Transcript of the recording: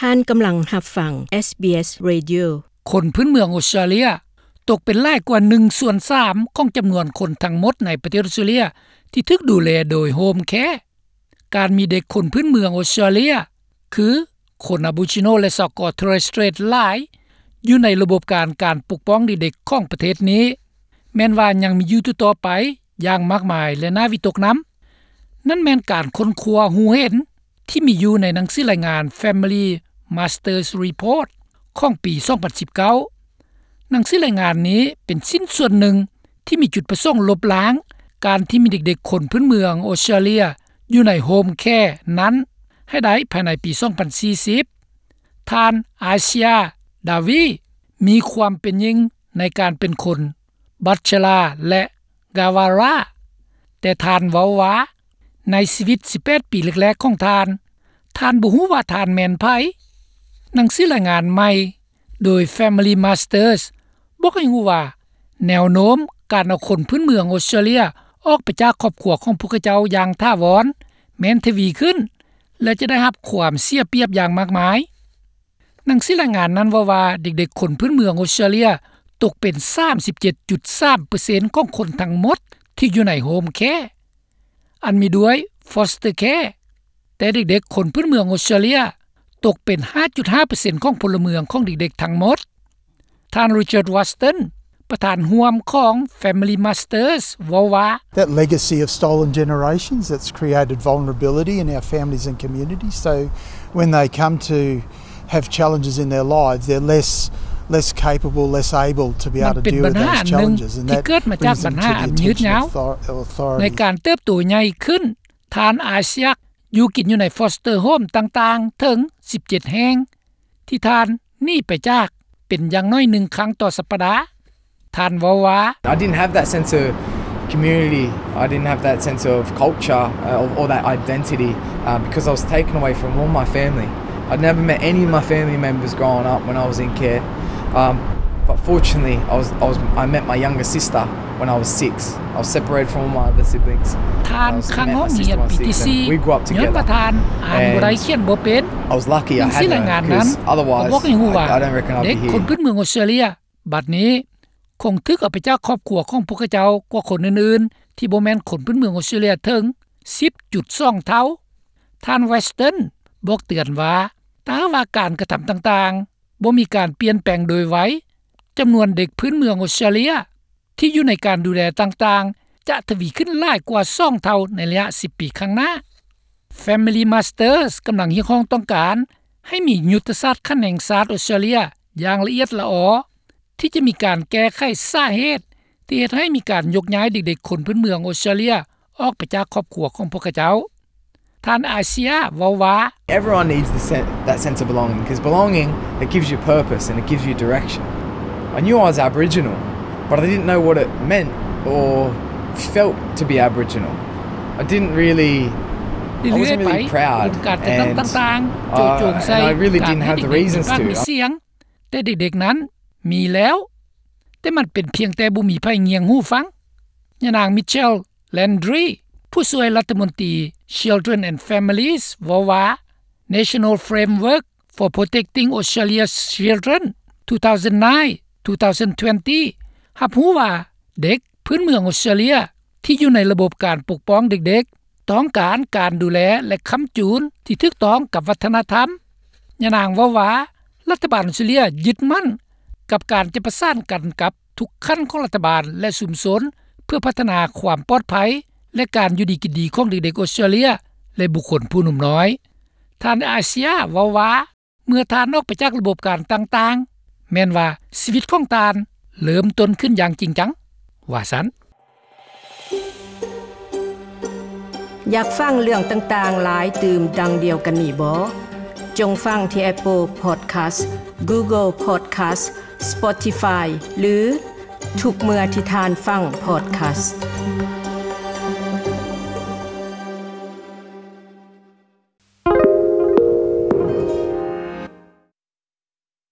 ທ່ານກຳລັງຮັບຟັງ SBS Radio. ຄົນພື້ນເມືອງອົດສະຕຣາເລຍຕົກເປັນຫຼາຍກວ່າໜຶ່ງສ່ວນສາມຂອງຈຳນວນຄົນທັງໝົດໃນປະເທດອົດສະຕຣາເລຍທີ່ຖືກດູແລໂດຍໂຮມແຄ. ການມີເດັກຄົນພື້ນເມືອງອົດສະຕຣາເລຍ ຄືຄົນອາໂບຣິຈິໂນ ແລະ ຊາວເກາະເທເຣສເຕຣດຫຼາຍ ຢູ່ໃນລະບົບການ ການປົກປ້ອງເດັກໆຂອງປະເທດນີ້ ແມ່ນວ່າຍັງມີຢູ່ຕໍ່ໆໄປຢ່າງມາກມາຍ ແລະ ໜ້າວິຕົກນຳ. ນັ້ນແມ່ນການຄົ້ນຄວ້າຮູ້ເຫັນທີ່ມີຢູ່ໃນໜັງສືລາຍງານ Family Masters Report ຂອງປີສອງພັນສິບເກົ້າ. ໜັງສືລາຍງານນີ້ເປັນຊິ້ນສ່ວນໜຶ່ງທີ່ມີຈຸດປະສົງລົບລ້າງການທີ່ມີເດັກໆຄົນພື້ນເມືອງອົດສະຕຣາເລຍຢູ່ໃນໂຮມແຄນັ້ນໃຫ້ໄດ້ພາຍໃນປີສອງພັນສີ່ສິບ. ທ່ານ ອາເຊຍ ດາວີ ມີຄວາມເປັນຍິ່ງໃນການເປັນຄົນ ບັດຊະລາ ແລະ ກາວາຣາ ແຕ່ທ່ານເວົ້າວ່າ ໃນຊີວິດສິບແປດປີແລກໆຂອງທ່ານ, ທ່ານບໍ່ຮູ້ວ່າທ່ານແມ່ນໃຜ. ໜັງສືລາຍງານໃໝ່ໂດຍ Family Masters ບອກໃຫ້ຮູ້ວ່າ ແນວໂນ້ມການເອົາຄົນພື້ນເມືອງອົດສະຕຣາເລຍອອກໄປຈາກຄອບຄົວຂອງພວກເຂົາເຈົ້າຢ່າງຖາວອນ ແມ່ນທະວີຂຶ້ນ ແລະ ຈະໄດ້ຮັບຄວາມເສຍປຽບຢ່າງມາກມາຍ. ໜັງສືລາຍງານນັ້ນເວົ້າວ່າ ເດັກໆຄົນພື້ນເມືອງອົດສະຕຣາເລຍຕົກເປັນສາມສິບເຈັດຈຸດສາມເປີເຊັນຂອງຄົນທັງໝົດທີ່ຢູ່ໃນໂຮມແຄ ອັນມີດ້ວຍ foster care, ແຕ່ເດັກໆຄົນພື້ນເມືອງອົດສະຕຣາເລຍຕົກເປັນຫ້າຈຸດຫ້າເປີເຊັນຂອງພົນລະເມືອງຂອງເດັກໆທັງໝົດ. ທ່ານ Richard Watson ປະທານຮ່ວມຂອງ Family Masters ເວົ້າວ່າ That legacy of stolen generations that's created vulnerability in our families and communities. So when they come to have challenges in their lives, they're less, less capable, less able to be able to deal with those challenges. And that brings them to the attention of author-, authorities. ໃນການເຕີບໂຕໃຫຍ່ຂຶ້ນ, ທ່ານອາເຊຍ ຢູ່ກິນຢູ່ໃນ foster home ຕ່າງໆເຖິງສິບເຈັດແຫ່ງ ທີ່ທ່ານໜີໄປຈາກເປັນຢ່າງໜ້ອຍໜຶ່ງຄັ້ງຕໍ່ສັບປະດາ. ທ່ານເວົ້າວ່າ I didn't have that sense of community. I didn't have that sense of culture, uh, or, or that identity, uh, because I was taken away from all my family. I'd never met any of my family members growing up when I was in care. Um, but fortunately, I was, I was, I met my younger sister when I was six. I was separated from all my other siblings. ທ່ານ I was ຄ້າງຫ້ອງຮຽນປີທີສີ່ We grew up together. ຍ້ອນວ່າທ່ານອ່ານບໍ່ໄດ້ And ຂຽນບໍ່ເປັນ. I was lucky. I had her, 'cause otherwise, I, I don't reckon I'd be here. ເດັກຄົນພື້ນເມືອງອົດສະຕຣາເລຍ ບັດນີ້ຄົງຖືກເອົາໄປຈາກຄອບຄົວຂອງພວກເຂົາເຈົ້າກວ່າຄົນອື່ນໆ ທີ່ບໍ່ແມ່ນຄົນພື້ນເມືອງອົດສະຕຣາເລຍເຖິງສິບຈຸດສອງເທົ່າ. ທ່ານ Watson ບອກເຕືອນວ່າ ຖ້າຫາກວ່າການກະທຳຕ່າງໆບໍ່ມີການປ່ຽນແປງໂດຍໄວ, ຈຳນວນເດັກພື້ນເມືອງອົດສະຕຣາເລຍ ທີ່ຢູ່ໃນການດູແລຕ່າງໆ ຈະທະວີຂຶ້ນຫຼາຍກວ່າສອງເທົ່າໃນໄລຍະສິບປີຂ້າງໜ້າ. Family Masters ກຳລັງຮຽກຮ້ອງຕ້ອງການໃຫ້ມີຍຸດທະສາດຂັ້ນແຫ່ງຊາດອົດສະຕຣາເລຍຢ່າງລະອຽດລະອໍ ທີ່ຈະມີການແກ້ໄຂສາເຫດທີ່ເຮັດໃຫ້ມີການຍົກຍ້າຍເດັກໆຄົນພື້ນເມືອງອົດສະຕຣາເລຍອອກໄປຈາກຄອບຄົວຂອງພວກເຂົາເຈົ້າ. ທ່ານອາເຊຍເວົ້າວ່າ Everyone needs the sen-, that sense of belonging, 'cause belonging, it gives you purpose and it gives you direction. I knew I was Aboriginal, but I didn't know what it meant or felt to be Aboriginal. I didn't really, I wasn't really proud, and, uh, and I really didn't have the reasons to. ແຕ່ເດັກໆນັ້ນມີແລ້ວ, ແຕ່ມັນເປັນພຽງແຕ່ບໍ່ມີໃຜງຽງຫູຟັງ. ຍານາງ Michelle Landry ຜູ້ຊ່ວຍລັດຖະມົນຕີ Children and Families ເວົ້າວ່າ National Framework for Protecting Australia's Children two thousand nine two thousand twenty ຮັບຮູ້ວ່າເດັກ ພື້ນເມືອງອົດສະຕຣາເລຍທີ່ຢູ່ໃນລະບົບການປົກປ້ອງເດັກໆ ຕ້ອງການການດູແລ ແລະ ຄ້ຳຈູນທີ່ຖືກຕ້ອງກັບວັດທະນະທຳ. ຍານາງເວົ້າວ່າ ລັດຖະບານອົດສະຕຣາເລຍຍຶດໝັ້ນກັບການຈະປະສານກັນກັບທຸກຂັ້ນຂອງລັດຖະບານ ແລະ ຊຸມຊົນ ເພື່ອພັດທະນາຄວາມປອດໄພ ແລະ ການຢູ່ດີກິນດີຂອງເດັກໆອົດສະຕຣາເລຍ ແລະ ບຸກຄົນຜູ້ໜຸ່ມນ້ອຍ. ທ່ານອາເຊຍເວົ້າວ່າ ເມື່ອທ່ານອອກໄປຈາກລະບົບການຕ່າງໆ ແມ່ນວ່າຊີວິດຂອງທ່ານເລີ່ມຕົ້ນຂຶ້ນຢ່າງຈິງຈັງ ວ່າຊັ້ນ. ຢາກຟັງເລື່ອງຕ່າງໆຫຼາຍຕື່ມດັ່ງດຽວກັນນີ້ບໍ່? ຈົ່ງຟັງທີ່ Apple Podcast, Google Podcast, Spotify ຫຼື ທຸກເມື່ອທີ່ທ່ານຟັງ podcast.